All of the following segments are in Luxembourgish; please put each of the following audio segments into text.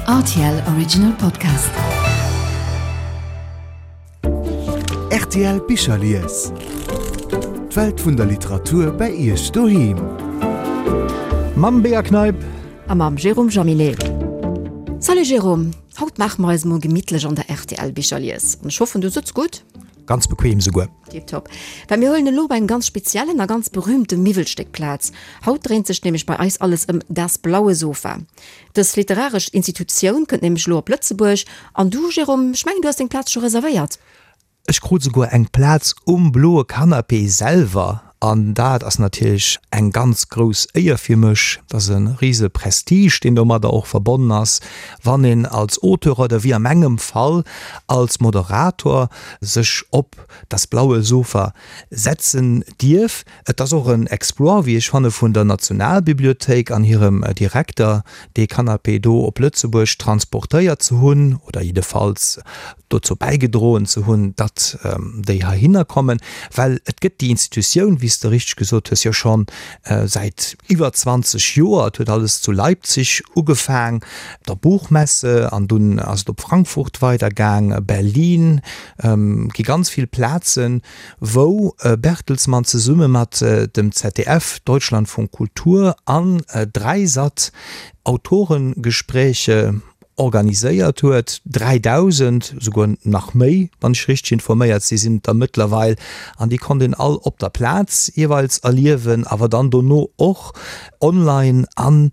Rtl Original Podcast. Rtl Bicherlies. D'Welt vun der Literatur bei Iech doheem. Mam Bea Kneip. A mam Jérôme Jaminet. Salut Jérôme, haut maache mer eis emol gemittlech an der rtl Bicherlies. An ech hoffen du sëtz gutt? Ganz bequem souguer. Tiptop. Well mir huelen elo bei engem ganz speziellen a ganz berühmte Miwwelstéck Plaz. Haut dréint sech nämlech bei eis alles ëm Das blaue Sofa. Dës literaresch Institutioun kënnt nämlech elo op Lëtzebuerg. An du, Jérôme, ech mengen du has deng Plaz scho reservéiert? Ech krut souguer eng Plaz um bloe Canapé selwer an dat ass natierlech eng ganz grouss Éier fir mech. Dat ass e rise Prestige, deen domadder och verbonnen ass, wann een als Auteur oder wéi a mengem Fall als Moderator sech op Das blaue Sofa setzen dierf. Et ass och en Exploit, wéi ech fanne, vun der Nationalbibliothéik an hirem Direkter, dee Canapé do op Lëtzebuerg transportéiert ze hunn oder jiddefalls dozou bäigedroen ze hunn, datt déi heihinner kommen, well et gëtt déi Institutioun, wéi s de richteg gesot hues, jo scho säit iwwer 20 Joer. Et huet alles zu Leipzig ugefaang, der Buchmesse, an dunn ass et op Frankfurt weidergaang, Berlin, gi ganz vill Plazen, wou Bertelsmann zesumme mat dem ZDF, Deutschlandfunk Kultur, an Dreisat Autorengespräche organiséiert huet. 3.000, esouguer nach méi, wann ech richteg informéiert si, sinn et der mëttlerweil. An déi konnt een all op der Plaz jeeweils erliewen, awer dann dono och online an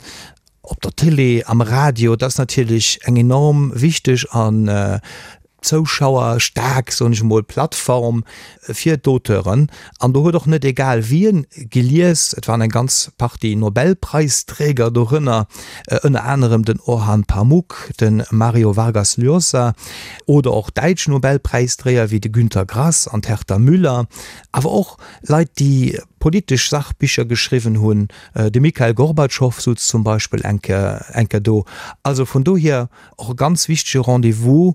op der Télé, am Radio. Dat ass natierlech eng enorm wichteg an zouschauerstaark, soen ech emol, Plattform fir d'Auteuren. An do huet och net egal wien gelies, et waren eng ganz Partie Nobelpreisträger dorënner, ënner anerem den Orhan Pamuk, de Mario Vargas Llosa oder och däitsch Nobelpräisdréier wéi de Günter Grass an d'Herta Müller, awer och Leit, déi politesch Sachbicher geschriwwen hunn, de Mikhail Gorbatschow sutz zum Beispill eng Kéier do. Also vun dohier och e ganz wichtege Rendez-vous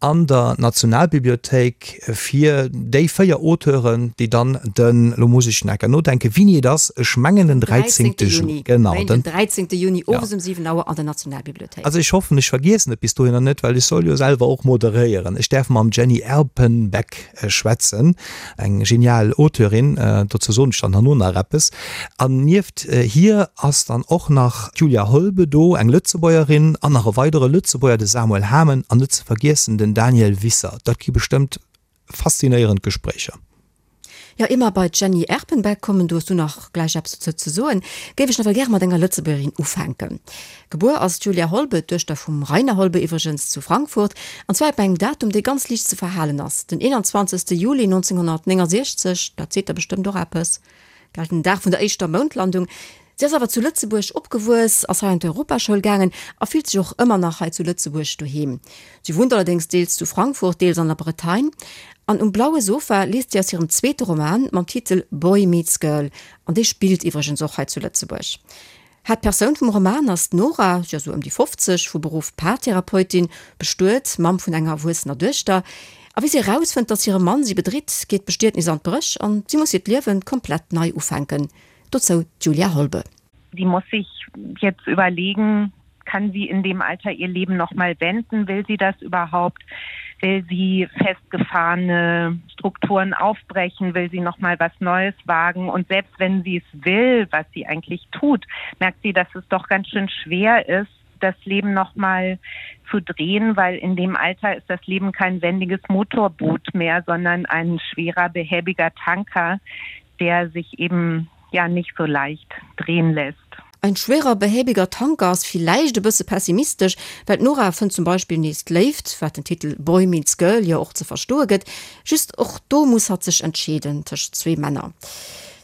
an der Nationalbibliothéik fir déi 4 Auteuren, déi dann den, elo muss ech nach eng Kéier nodenken, wéini et ass, ech mengen den 13. Juni, genau, den 13. Juni owes um 7 Auer an der Nationalbibliothéik. Also ech hoffen, ech vergiessen et bis dohinner net, well ech soll jo selwer och moderéieren. Ech däerf mam Jenny Erpenbeck schwätzen, eng genial Auteurin, dozou soen ech dann herno nach eppes. An nieft hir ass dann och nach d'Julia Holbe do, eng Lëtzebuergerin, an nach e weidere Lëtzebuerger, de Samuel Hamen, an net ze vergiessen den Daniel Wisser. Dat gi bestëmmt faszinéierend Gespréicher. Jo, ier mer bei d'Jenny Erpenbeck kommen, do hues du nach gläich eppes dozou ze soen, géif ech nawell gäre mat enger Lëtzebuergerin ufänken. Gebuer ass d'Julia Holbe, d'Duechter vum Rainer Holbe iwwregens, zu Frankfurt, an zwar op engem Datum, dee ganz liicht ze verhalen ass, den 21. Juli 1969, dat seet der bestëmmt och eppes, gell, den Dag vun der éischter Moundlandung. Si ass awer zu Lëtzebuerg opgewuess, ass hei an d'Europaschoul gaangen a fillt sech och ëmmer nach hei zu Lëtzebuerg doheem. Si wunnt allerdéngs deels zu Frankfurt, deels an der Bretagne. An Um blaue Sofa liest si aus hirem zweete Roman mam Titel Boy meets Girl, an dee spillt iwwregens och hei zu Lëtzebuerg. Haaptpersoun vum Roman ass d'Nora, si ass esou ëm déi 50, vu Beruff Paartherapeutin, bestuet, Mamm vun enger erwuessener Duechter. A wéi si erausfënnt, datt hire Mann si bedritt, geet d'Bestietnis an d'Bréch an si muss hiert Liewe komplett nei ufänken. Dozou d'Julia Holbe. Sie muss sich jetzt überlegen, kann sie in dem Alter ihr Leben noch mal wenden? Will sie das überhaupt? Will sie festgefahrene Strukturen aufbrechen? Will sie noch mal was Neues wagen? Und selbst wenn sie es will, was sie eigentlich tut, merkt sie, dass es doch ganz schön schwer ist, das Leben noch mal zu drehen, weil in dem Alter ist das Leben kein wendiges Motorboot mehr, sondern ein schwerer behäbiger Tanker, der sich eben ja nicht so leicht drehen lässt. Ein schwerer behäbiger Tanker ass villäicht e bësse pessimistesch, well d'Nora fënnt zum Beispill nees d'Léift, wat den Titel Boy meets Girl jo och ze verstoe gëtt. Just och do muss hatt sech entscheeden tëscht zwee Männer.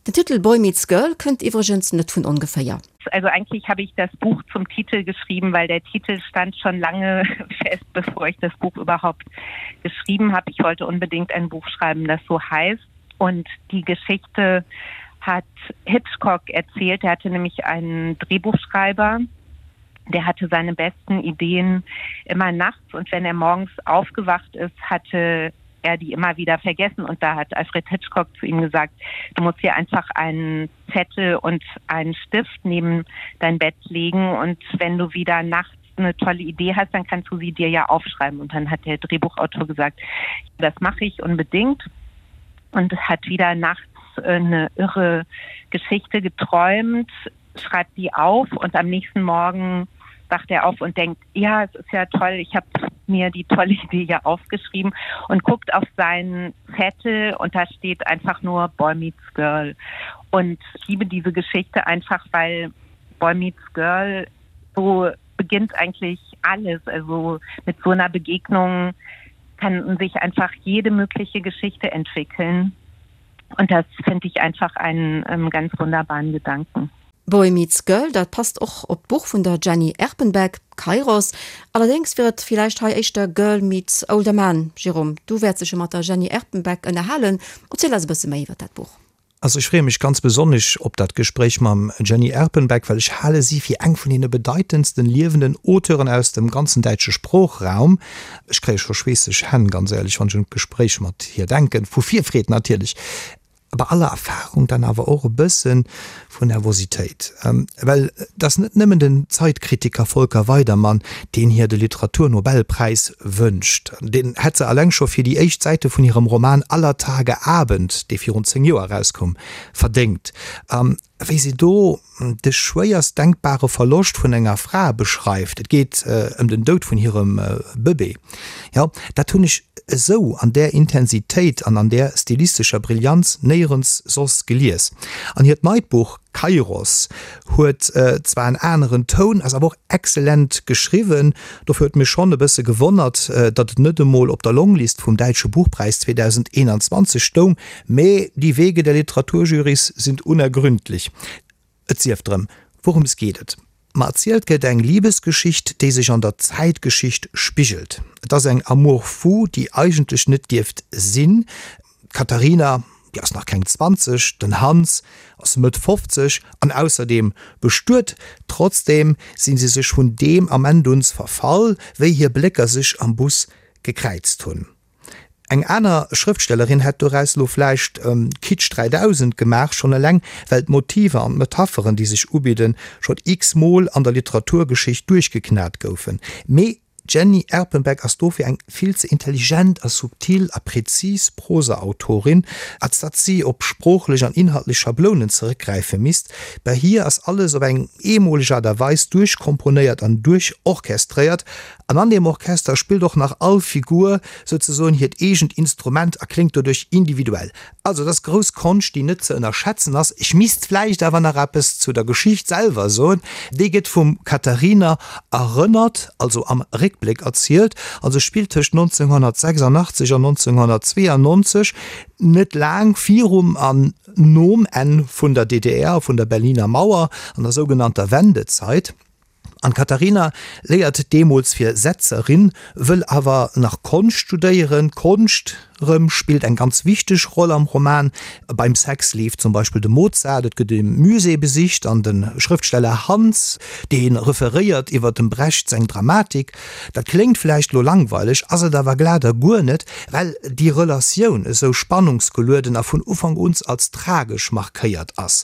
Den Titel Boy meets Girl kënnt iwwregens net vun ongeféier. Also eigentlich habe ich das Buch zum Titel geschrieben, weil der Titel stand schon lange fest, bevor ich das Buch überhaupt geschrieben habe. Ich wollte unbedingt ein Buch schreiben, das so heißt. Und die Geschichte hat Hitchcock erzählt. Er hatte nämlich einen Drehbuchschreiber, der hatte seine besten Ideen immer nachts und wenn er morgens aufgewacht ist, hatte er die immer wieder vergessen und da hat Alfred Hitchcock zu ihm gesagt, du musst hier einfach einen Zettel und einen Stift neben dein Bett legen und wenn du wieder nachts. eine tolle Idee hast, dann kannst du sie dir ja aufschreiben. Und dann hat der Drehbuchautor gesagt, das mache ich unbedingt und hat wieder nachts eine irre Geschichte geträumt, schreibt die auf und am nächsten Morgen wacht er auf und denkt, ja, es ist ja toll, ich habe mir die tolle Idee ja aufgeschrieben und guckt auf seinen Zettel und da steht einfach nur Boy meets Girl. Und ich liebe diese Geschichte einfach, weil Boy meets Girl so beginnt eigentlich alles. Also mit so einer Begegnung kann sich einfach jede mögliche Geschichte entwickeln. Und das finde ich einfach einen ähm, ganz wunderbaren Gedanken. Boy meets Girl, dat passt och op d'Buch vun der Jenny Erpenbeck, Kairos. Allerdéngs wier et villäicht hei éischter Girl meets older man. Jérôme, du wäerts dech jo mat der Jenny Erpenbeck ënnerhalen. Erziel eis e bësse méi iwwer dat Buch. Also ech freeë mech ganz besonnesch op dat Gespréich mam Jenny Erpenbeck, well ech hale si fir eng vun deene bedeitendsten liewenden Auteuren aus dem ganzen däitsche Sproochraum. Ech kréie scho schweesseg Hänn, ganz éierlech, wann ech un d'Gespréich mat hir denken, vu Virfreed natierlech. Bei aller Erfahrung dann awer och e bësse vun Nervositéit, well et ass net nëmmen den Zeitkritiker Volker Weidermann, deen hir de Literaturnobelpräis wënscht. Deen hätt se alleng scho fir déi éischt Säite vun hirem Roman Aller Tage Abend, dee virun 10 Joer erauskoum, verdéngt. A wéi se do de schwéierst denkbare Verloscht vun enger Fra beschreift, et geet ëm den Doud vun hirem Bëbee, jo, dat hunn ech esou an där Intensitéit an an där stilistescher Brillanz néierens soss gelies. An hiert neit Buch Kairos huet zwar en aneren Toun, ass awer och excellent geschriwwen. Dofir huet mech schonn e bësse gewonnert, datt et net emol op der Longlist vum Däitsche Buchpräis 2021 stoung, mee die Wege der Literaturjurys sind unergründlich. Et sief drëm, wourëms geet et? Ma erzielt gëtt eng Libesgeschicht, déi sech an der Zäitgeschicht spigelt. Et ass eng Amour fou, déi eigentlech net dierft sinn. D'Katharina, déi ass nach keng 20, den Hans ass Mëtt 50 an ausserdeem bestuet. Trotzdeem si se sech vun deem Ament uns verfall, wéi hir Blécker sech am Bus gekräizt hunn. Eng aner Schrëftstellerin hätt doraus lo vläicht Kitsch 3000 gemaach, schonn eleng well d'Motiver an d'Metapheren, déi sech ubidden, schonn x-mol an der Literaturgeschicht duerchgeknat goufen. Mee d'Jenny Erpenbeck ass dofir eng vill ze intelligent a subtil a präzis Prosaautorin, als datt si op sproochlech an inhaltlech Schablounen zeréckgräife misst. Bei hir ass alles op eng eemoleg Aart a Weis duerchkomponéiert an duerchorchestréiert, An an deem Orchester spillt och nach all Figur souzesoen hiert eegent Instrument a kléngt doduerch individuell. Also et ass grouss Konscht, déi net ze ënnerschätzen ass. Ech misst vläicht awer nach eppes zu der Geschicht selwer soen. Déi gëtt vum Katharina erënnert, also am Réckbléck erzielt, a se spillt tëscht 1986 an 1992, net laang virum an nom Enn vun der DDR a vun der Berliner Mauer, an der sougenannter Wendezeit. An d'Katharina léiert deemools fir Setzerin, wëll awer nach Konscht studéieren. D'Konscht rëm spillt eng ganz wichteg Roll am Roman. Beim Sex leeft zum Beispill de Mozart, et gëtt e Musée besicht an de Schrëftsteller Hans, dee referéiert iwwer dem Brecht seng Dramatik. Dat kléngt vläicht lo langweileg, ass et awer glat a guer net, well déi Relatioun esou spannungsgelueden a vun Ufank un als tragesch markéiert ass.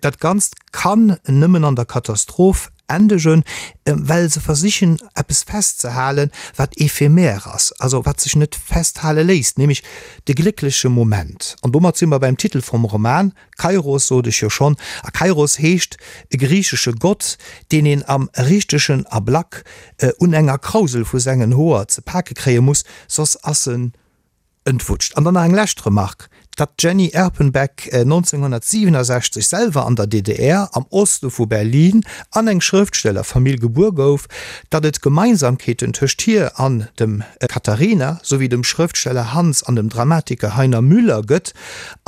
Dat Ganzt kann nëmmen an der Katastroph endegen, well se versichen eppes festzehalen, wat éphémère ass, also wat sech net festhale léisst, nämlech de gléckleche Moment. An domat si mer beim Titel vum Roman, Kairos sot ech jo schonn, a Kairos heescht e griichesche Gott, deen een am richtegen Ablack un enger Krausel vu sengen Hoer ze pake kréie muss, soss ass en Entwutscht. An dann nach eng lescht Remark, Datt d'Jenny Erpenbeck 1967 selwer an der DDR, am Oste vu Berlin, an eng Schrëftstellerfamill gebuer gouf, datt et Gemeinsamkeeten tëscht hir an dem Katharina, souwéi dem Schrëftsteller Hans an dem Dramatiker Heiner Müller gëtt,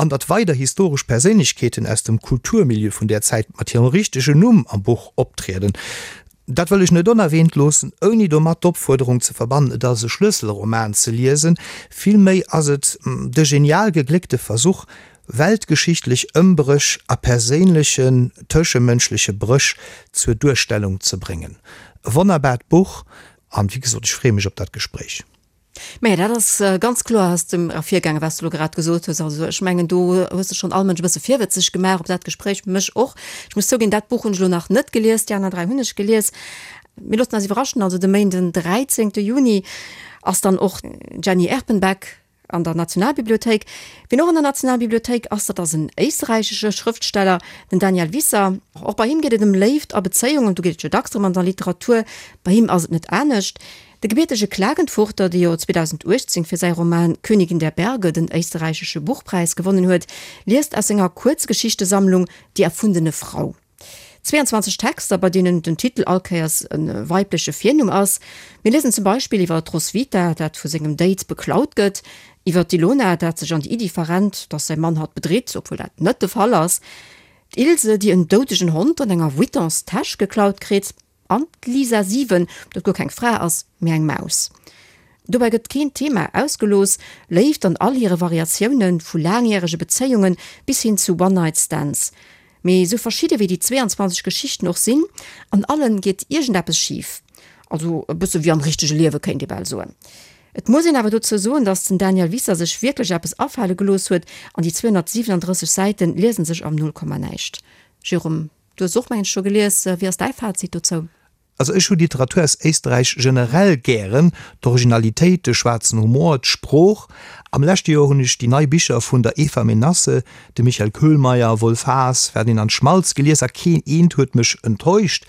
an datt weider historesch Perséinlechkeeten aus dem Kulturmilieu vun där Zäit mat hirem richtegen Numm am Buch optrieden, Dat wëll ech net onerwähnt loossen, ouni domat d'Opfuerderung ze verbannen, et als e Schlësselroman ze liesen. Villméi ass et de genial gegléckte Versuch, weltgeschichtlech Ëmbréch a perséinlechen, tëschemënschleche Bréch zur Duerstellung ze bréngen. E wonnerbaart Buch, an wéi gesot, ech freeë mech op dat Gespréich. Mä dat ass ganz kloer aus dem ervirgaangen, wat s du elo grad gesot hues. Also ech mengen, do hues de schonn all Mënsch e bësse virwëtzeg gemaach op dat Gespréich, mech och. Ech muss zouginn, dat Buch hunn ech elo nach net gelies, déi aner 3 hunn ech gelies. Mir loossen eis iwwerraschen, also de Méinden 13 Juni ass dann och d'Jenny Erpenbeck an der Nationalbibliothéik. Wien och an der Nationalbibliothéik ass, dat ass en éisträichesche Schrëftsteller, den Daniel Wisser. Och bei him geet et ëm Léift a Bezéiungen, do geet et jo dacks drëm an der Literatur, bei him ass et net anescht. De gebiertege Klagenfurter, dee jo 2018 fir säi Roman Königin der Berge den éisterräichesche Buchpräis gewonnen huet, liest aus senger Kuerzgeschichtesammlung Die erfundene Frau. 22 Texter, bei deenen den Titel all Kéiers e weibleche Virnumm ass. Mir liesen zum Beispill iwwer d'Roswitha, dat vu sengem Date beklaut gëtt, iwwer d'Ilona, dat sech an déi Iddi verrennt, datt säi Mann hatt bedritt, obwuel dat net de Fall ass, d'Ilse, déi en doudegen Hond an enger Vuittons-Täsch geklaut kritt, an d'Lisa 7, dat guer keng Fra ass, mee eng Maus. Dobäi gëtt keen Thema ausgelooss, Léift an all hire Variatiounen, vu laangjärege Bezéiunge bis hin zu One-Night-Stands. Mee esou verschidde wéi déi 22 Geschichten och sinn, an allen geet iergendeppes schif. Also e bësse wéi am richtege Liewe kéint ee bal soen. Et muss een awer dozou soen, datt den Daniel Wisser sech wierklech eppes afale gelooss huet an déi 237 Säiten liesen sech am Nullkommanäischt. Jérôme, du hues och mengen ech scho gelies, wéi ass däi Fazit dozou? Also ech hu Literatur aus Éisterräich generell gären, d'Originalitéit, de schwaarzen Humor, d'Sprooch. Am leschte Joer hunn ech déi nei Bicher vun der Eva Menasse, dem Michael Köhlmeier, Wolf Haas, Ferdinand Schmalz gelies a keen eent huet mech enttäuscht.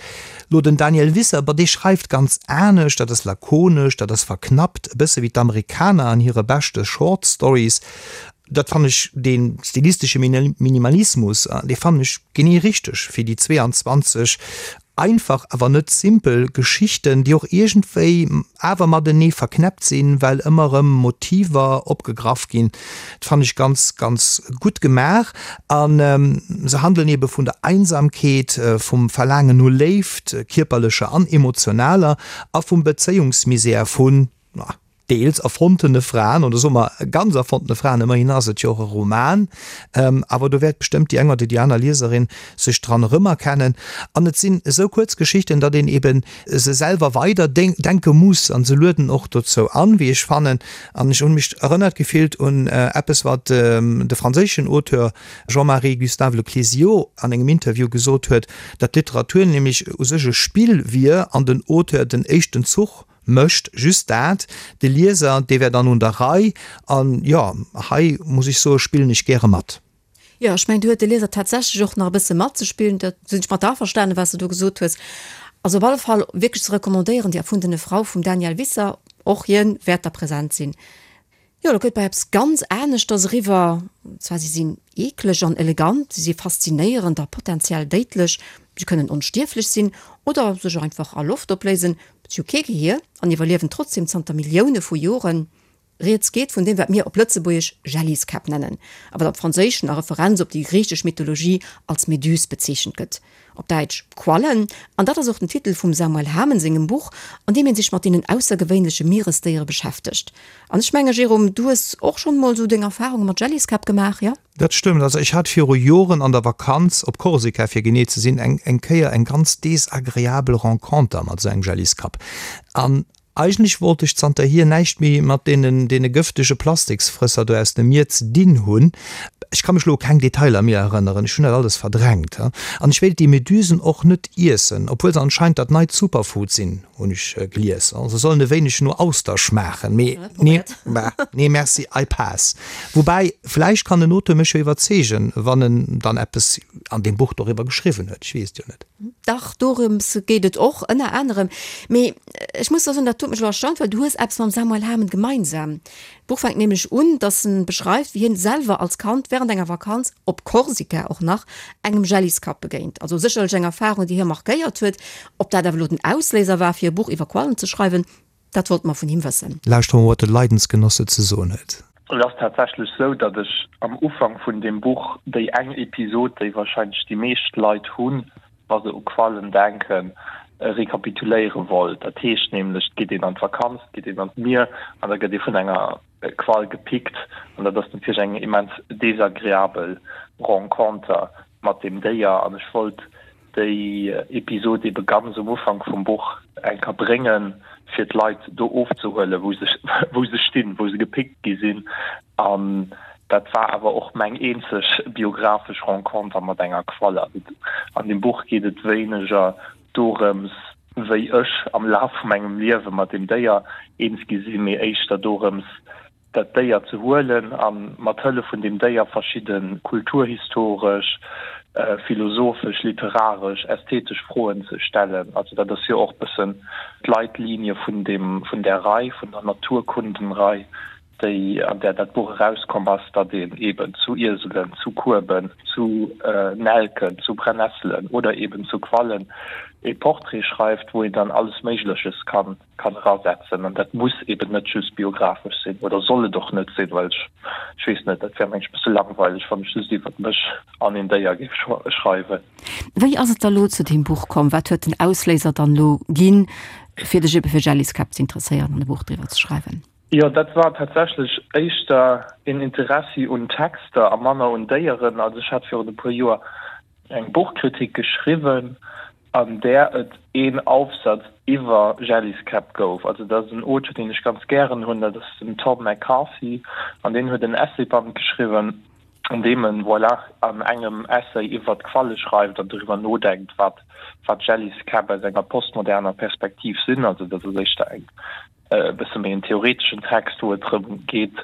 Lo den Daniel Wisser, bah dee schreift ganz anescht, dat ass lakonesch, dat ass verknappt, e bësse wéi d'Amerikaner an hire beschte Short Stories. Dat fannen ech, dee stilistesche Minimalismus, dee fannen ech genee richteg fir déi 22 einfach, awer net simpel Geschichten, déi och iergendwéi awer matenee verknäppt sinn, well ëmmer erëm Motiver opgegraff ginn. Dat fannen ech ganz, ganz gutt gemaach. A se handelen ebe vun der Einsamkeet, vum Verlaangen no Léift, kierperlecher an emotionaler, a vum Bezéiungsmisär vun, deels erfonntene Fraen, oder soe mer ganz erfonntene Fraen, ëmmerhin ass et jo och e Roman, awer do wäert bestëmmt déi eng oder déi aner Lieserin sech dran erëmerkennen. An et sinn esou kuerz Geschichten, datt een eben se selwer weider denke muss, an se lueden och dozou an, wéi ech fannen. An ech hunn mech erënnert gefillt un eppes, wat de franséischen Auteur Jean-Marie Gustave Le Clézio an engem Interview gesot huet, datt d'Literatur nämlech u sech e Spill wier an den Auteur den éischten Zuch Mécht just dat, de Lieser, dee wär dann un der Rei. An jo, hei muss ech soe spillen ech gäre mat. Jo, ech mengen, do huet de Lieser tatsächlech och nach e bësse matzespillen. Dat sinn ech mat der averstanen, wat s de do gesot hues. Also op alle Fall wierklech ze recommandéieren, Die erfundene Frau vum Daniel Wisser. Och hien wäert da present sinn. Jo, do gëtt bei eppes ganz aneschters eriwwer. Und zwar, si sinn eekleg an elegant, si si faszinéierend a potenziell déidlech, si kënnen onstierflech sinn oder sech einfach a Loft opléisen, si hu kee Gehier an iwwerliewen trotzdeem zanter Millioune vu Joren. Rieds geet vun deem, wat mir op Lëtzebuergesch Jelliskäpp nennen, a wat am Franséischen a Referenz op déi griichesch Mythologie als Méduse bezeechent gëtt. Op Däitsch Quallen, an dat ass och den Titel vum Samuel Hamen sengem Buch, an deem hien sech mat deenen aussergewéinleche Mieresdéiere beschäftegt. An ech menge Jérôme, du hues och schonn emol esou deng Erfarunge mat Jelliskäpp gemaach, jo? Dat stëmmt. Also ech hat viru Joren an der Vakanz, op Korsika fir genee ze sinn, eng eng Kéier eng ganz desagreabel Renconter mat esou engem Jelliskapp. An Eigentlech wollt ech zanterhier näischt méi mat deenen deene gëftege Plastiksfrësser do aus dem Mier ze dinn hunn. Ech ka mech lo u keng Detailer méi erënneren, ech hunn dat alles verdrängt. An ech wéilt déi Medusen och net iessen, obwuel se anscheinend dat neit Superfood sinn, hunn ech gelies. Se sollen e wéineg no Auster schmaachen, mee nee, nee merci, I pass. Woubäi, vläicht kann den Auteur mech jo iwwerzeegen, wann en dann eppes an deem Buch doriwwer geschriwwen huet, ech weess et jo net. Dach, dorëms geet et och, ënner anerem. Mee ech muss der soen, dat huet mech elo erstaunt, well du hues eppes mam Samuel Hamen gemeinsam. D'Buch fänkt nämlech un, dass en beschreift, wéi hien selwer als Kand während enger Vakanz, op Korsika och nach, engem Jelliskapp begéint. Also sécherlech eng Erfarung, déi hie markéiert huet. Ob dat awer elo den Ausléiser war, fir e Buch iwwer Quallen ze schreiwen, Dat wollte mer vun him wëssen. Lauschteren wat de Leidensgenosse ze soen huet. Et ass tatsächlech sou, datt ech am Ufank vun deem Buch déi eng Episod, déi warscheinlech déi meescht Leit hunn, wa se u Quallen denken, rekapituléiere wollt. Dat heescht nämlech, et geet een an d'Vakanz, et geet een an d'Mier an da gëtt ee vun enger Qual gepickt an dat ass natierlech eng immens desagreabel Renconter mat deem Déier an ech wollt déi Episod ebe ganz um Ufank vum Buch eng Kéier bréngen, fir d'Leit do ofzehuelen, wou se wou se stinn, wou se gepickt gi sinn. An dat war awer och meng eenzeg biographesch Renconter mat enger Qualle. Also an deem Buch geet et wéineger dorëms. wéi ech am Laf vu mengem Liewe mat deem Déier eens gi sinn, mee éischter dorëms, dat Déier ze huelen a mat Hëllef vun deem Déier verschidde kulturhistoresch, philosophesch, literaresch, ästhetesch Froen ze stellen. Also dat ass jo och bëssen d'Leitlinie vun deem, vun där Rei, vun der Naturkundenrei, déi, an där dat Buch erauskomm ass, datt een eeben zu Ieselen, zu Kueben, zu Nelken, zu Brennesselen oder eeben zu Quallen ee Portrait schreift, wou een dann alles Méigleches kann kann erasetzen. An dat muss eeben net just biographesch sinn oder soll et och net sinn, well ech, ech weess net, dat wär mengen ech e bësse langweileg, wann ech just iwwert mech an een Déier géif schreiwen. Wéi ass et da lo zu deem Buch komm? Wat huet den Ausléiser dann lo ginn, fir dech ebe fir Jelliskäpp ze interesséieren an e Buch driwwer ze schreiwen? Jo, dat war tatsächlech éischter een Interessi un Texter a manner un Déieren. Also ech hat virun e puer Joer eng Buchkritik geschriwwen, an där et een Aufsatz iwwer Jelliskäpp gouf. Also dat ass en Auteur, deen ech ganz gären hunn, dat ass den Tom McCarthy, an deen huet en Essayband geschriwwen, an deem en, voilà, an engem Essay iwwer d'Qualle schreift an doriwwer nodenkt, wat wat Jelliskäpp aus enger postmoderner Perspektiv sinn. Also dat ass éischter eng e bësse méi en theoreteschen Text, wou et drëm geet,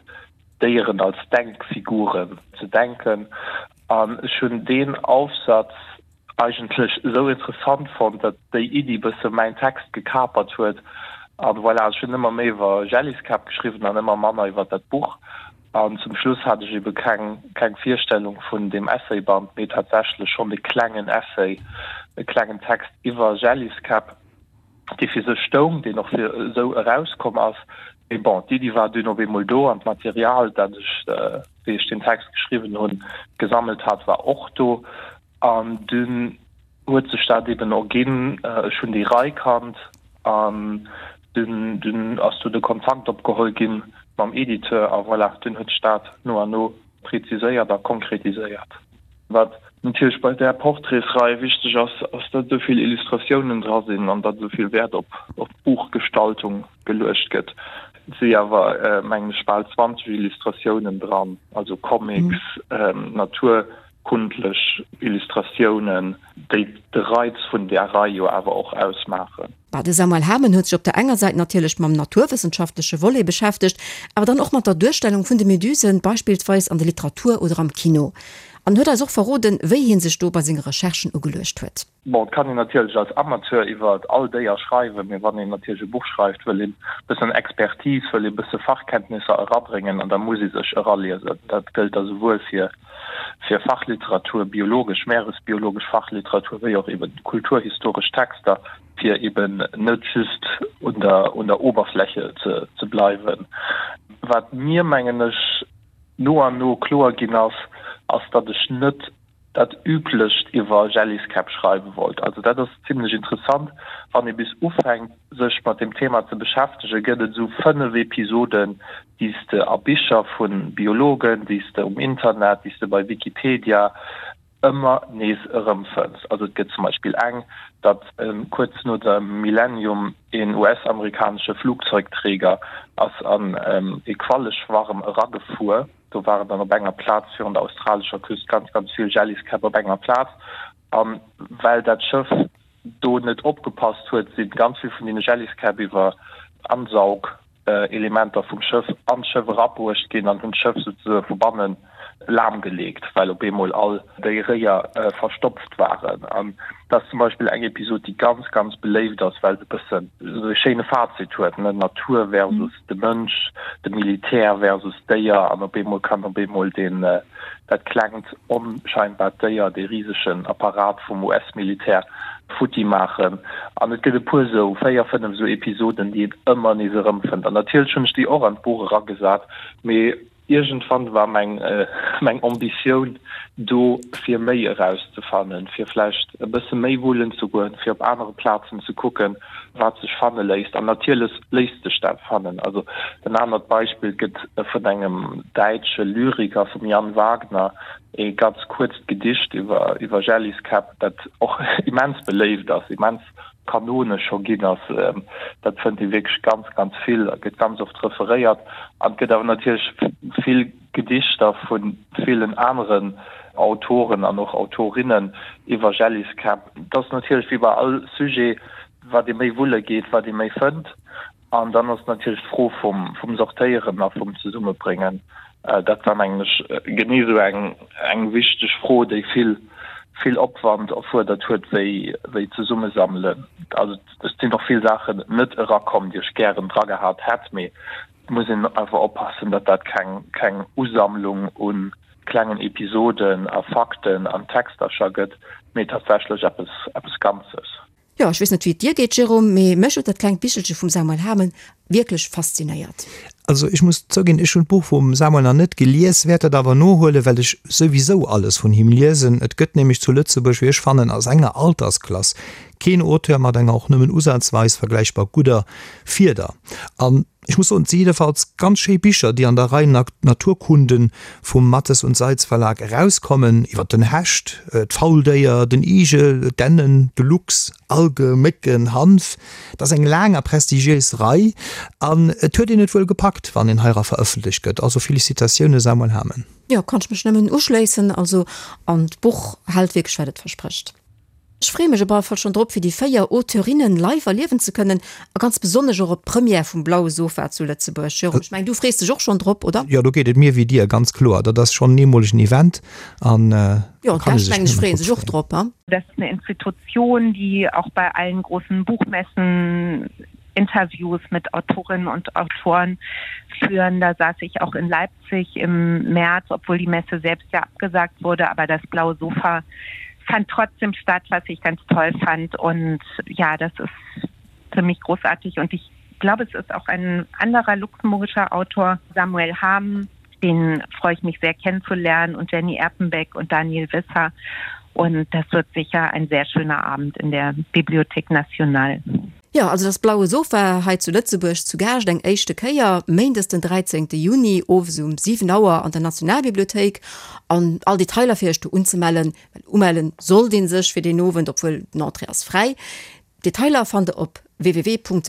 Déieren als Denkfiguren ze denken. An ech hunn deen Aufsatz eigentlech esou interessant fonnt, datt déi Iddi bësse mäin Text gekapert huet. An voilà, ech hunn ëmmer méi iwwer Jelliskäpp geschriwwen an ëmmer manner iwwer dat Buch. An zum Schluss hat ech ebe keng, keng Virstellung vun deem Essayband, mee tatsächlech schonn e klengen Essay, e klengen Text iwwer Jelliskäpp. dee fir sech stoung, deen och fir esou erauskomm ass. Mee bon, d'Iddi war dunn op eemol do an d'Material, dat ech, wéi ech deen Text geschriwwen hunn, gesammelt hat, war och do. An dunn huet sech dat eben erginn. Ech hunn déi Rei kannt an dunn, dunn ass do de Kontakt opgeholl gi mam Editeur a voilà, dunn huet sech dat no an no präziséiert a konkretiséiert. Wat natierlech bei där Portraitsrei wichteg ass, ass datt esou vill Illustratiounen dra sinn an datt esou vill Wäert op d'Buchgestaltung geluecht gëtt. Et si awer, mengen ech, bal 20 Illustratiounen dran, also Comics, naturkundlech Illustratiounen, déi de Reiz vun där Rei jo awer och ausmaachen. Bah, de Samuel Hamen huet sech op der enger Säit natierlech mam naturwëssenschaftleche Volet beschäftegt, awer dann och mat der Duerstellung vun de Medusen, beispillsweis an der Literatur oder am Kino. An huet eis och verroden, wéi hie sech do bei senge Recherchen ugeluecht huet. Bon, et kann een natierlech als Amateur iwwer all Déier schreiwen, mee wann een natierlech e Buch schreift, wëll een e bëssen Expertise, wëll ee bësse Fachkenntnisser erabréngen an da muss ee sech eraliesen. Dat gëllt da souwuel fir fir Fachliteratur, biologesch, meeresbiologesch Fachliteratur, wéi och eben kulturhistoresch Texter, fir eben net just un der, un der Oberfläche ze, ze bleiwen. Wat mir, mengen ech, no an no kloer ginn ass, ass, datt ech net dat Üblecht iwwer Jelliskäpp schreiwe wollt. Also dat ass zimlech interessant, wann ee bis ufänkt, sech mat deem Thema ze beschäftegen, gëtt et esou 5 Episoden, déi s de a Bicher vu Biologen, déi s de um Internet, déi s de bei Wikipedia ëmmer nees erëmfënns. Also et gëtt zum Beispill eng, datt kuerz no dem Millennium een US-amerikanesche Flugzeugträger ass an ee Qualleschwarm eragefuer. Do waren dann op enger Plaz virun der australescher Küst ganz, ganz vill Jelliskäpp op enger Plaz. A well dat Schëff do net opgepasst huet, si ganz vill vun deene Jelliskäpp iwwer Ansaugelementer vum Schëff an d'Schëff erabruecht ginn an hunn d'Schëff souzesoe vu banne lahmgeleegt, well op eemol all déi Réier verstopft waren. An dat ass zum Beispill eng Episod, déi ganz, ganz beléift ass, well se e bëssen esou e schéine Fazit huet, ne, Natur versus de Mënsch, de Militär versus d'Déier an op eemol kann op eemol deen, dat klengt onscheinbart Déier dee risegen Apparat vum US-Militär futti maachen. An et gëtt e puer esou, 4, 5 esou Episoden, déi een ëmmer nees erëmfënnt. An natierlech hunn ech déi och an d'Buch eragesat, mee Iergendwann war meng meng Ambitioun do fir méi erauszefannen, fir vläicht e bësse méi wullen ze goen, fir op anere Plazen ze kucken, wat sech fanne léisst. An natierlech léisst sech dat fannen. Also en anert Beispill, et gëtt vun engem däitsche Lyriker, vum Jan Wagner, ee ganz kuerzt Gedicht iwwer iwwer Jelliskäpp, dat och immens beléift ass, immens kanonesch scho ginn ass. Dat fënnt ee wierklech ganz, ganz vill a gëtt ganz oft referéiert. An et gëtt awer natierlech vill Gedichter vu villen aneren Autoren an och Autorinnen iwwer Jelliskäpp. Et ass natierlech wéi bei all Sujet. Wat ee méi wulle geet, wat ee méi fënnt. An dann ass natierlech d'Fro vum, vum Sortéieren a vum Zesummebréngen. Dat war, mengen ech, genee esou eng, eng wichteg Fro, déi vill, vill Opwand erfuerdert huet, wéi, wéi d'Zesummesammelen. Also et sinn och vill Saachen net erakomm, déi ech gären dragehat hätt, mee et muss een einfach oppassen, datt dat keng, keng Usammlung u klengen Episoden a Fakten an Textercher gëtt, mee tatsächlech eppes, eppes Ganzes. Jo, ech weess net wéi et dir geet Jérôme, mee mech huet dat klengt Bichelche vum Samuel Hamen wierklech faszinéiert. Also ech muss zouginn, ech hunn d'Buch vum Samuel nach net gelies, wäert dat awer nohuelen, well ech souwisou alles vun him liesen. Et gëtt nämlech zu Lëtzebuerg, wéi ech fannen, a senger Altersklass keen Auteur mat enger och nëmmen usazweis vergläichbar gudder Fieder. An Ech muss soen, et si jiddefalls ganz schéi Bicher, déi an der Rei Naturkunden vum Matthes und Seitz Verlag erauskommen, iwwer den Hecht, d'Fauldéier, den Igel, d'Ennen, de Luchs, Alge, Mécken, Hanf. Et ass eng laang a prestigiéis Rei an et huet een et wuel gepackt, wann een heira verëffentlecht gëtt. Also Felicitatioune Samuel Hamen. Jo, kann ech mech nëmmen uschléissen. Also, an d'Buch hält wierklech wat et versprécht. Ech freeë mech op alle Fall schonn drop, fir déi 4 Auteurinnen live erliewen ze kënnen a ganz besonnesch och op d'Première vum Blaue Sofa zu Lëtzebuerg. Jérôme, ech mengen, du frees dech och schonn drop, oder? Jo, do geet et mir wéi dir, ganz kloer. Dat ass schonn en eemolegen Event an Jo, do kann ee d'Gäscht, sech mengen ech, nëmmen freeë drop sech och freeën. drop, ha? Dat ass eine Institution, die auch bei allen großen Buchmessen Interviews mit Autorinnen und Autoren führen. Da saß ich auch in Leipzig im März, obwohl die Messe selbst ja abgesagt wurde, aber das blaue Sofa fand trotzdem statt, was ich ganz toll fand und ja, das ist für mich großartig und ich glaube, es ist auch ein anderer luxemburgischer Autor, Samuel Hamen, den freue ich mich sehr kennenzulernen und Jenny Erpenbeck und Daniel Wisser. Und das wird sicher ein sehr schöner Abend in der Bibliothek Nationale. Jo, also das Blaue Sofa hei zu Lëtzebuerg zu Gaascht eng éischte Kéier, méindes den 13 Juni owes um 7 Auer an der Nationalbibliothéik. An all Detailer fir iech do unzemellen, well umellen sollt ee sech fir deen Owend, obwuel den Entrée ass fräi. Detailer fannt der op www.bnl.lu.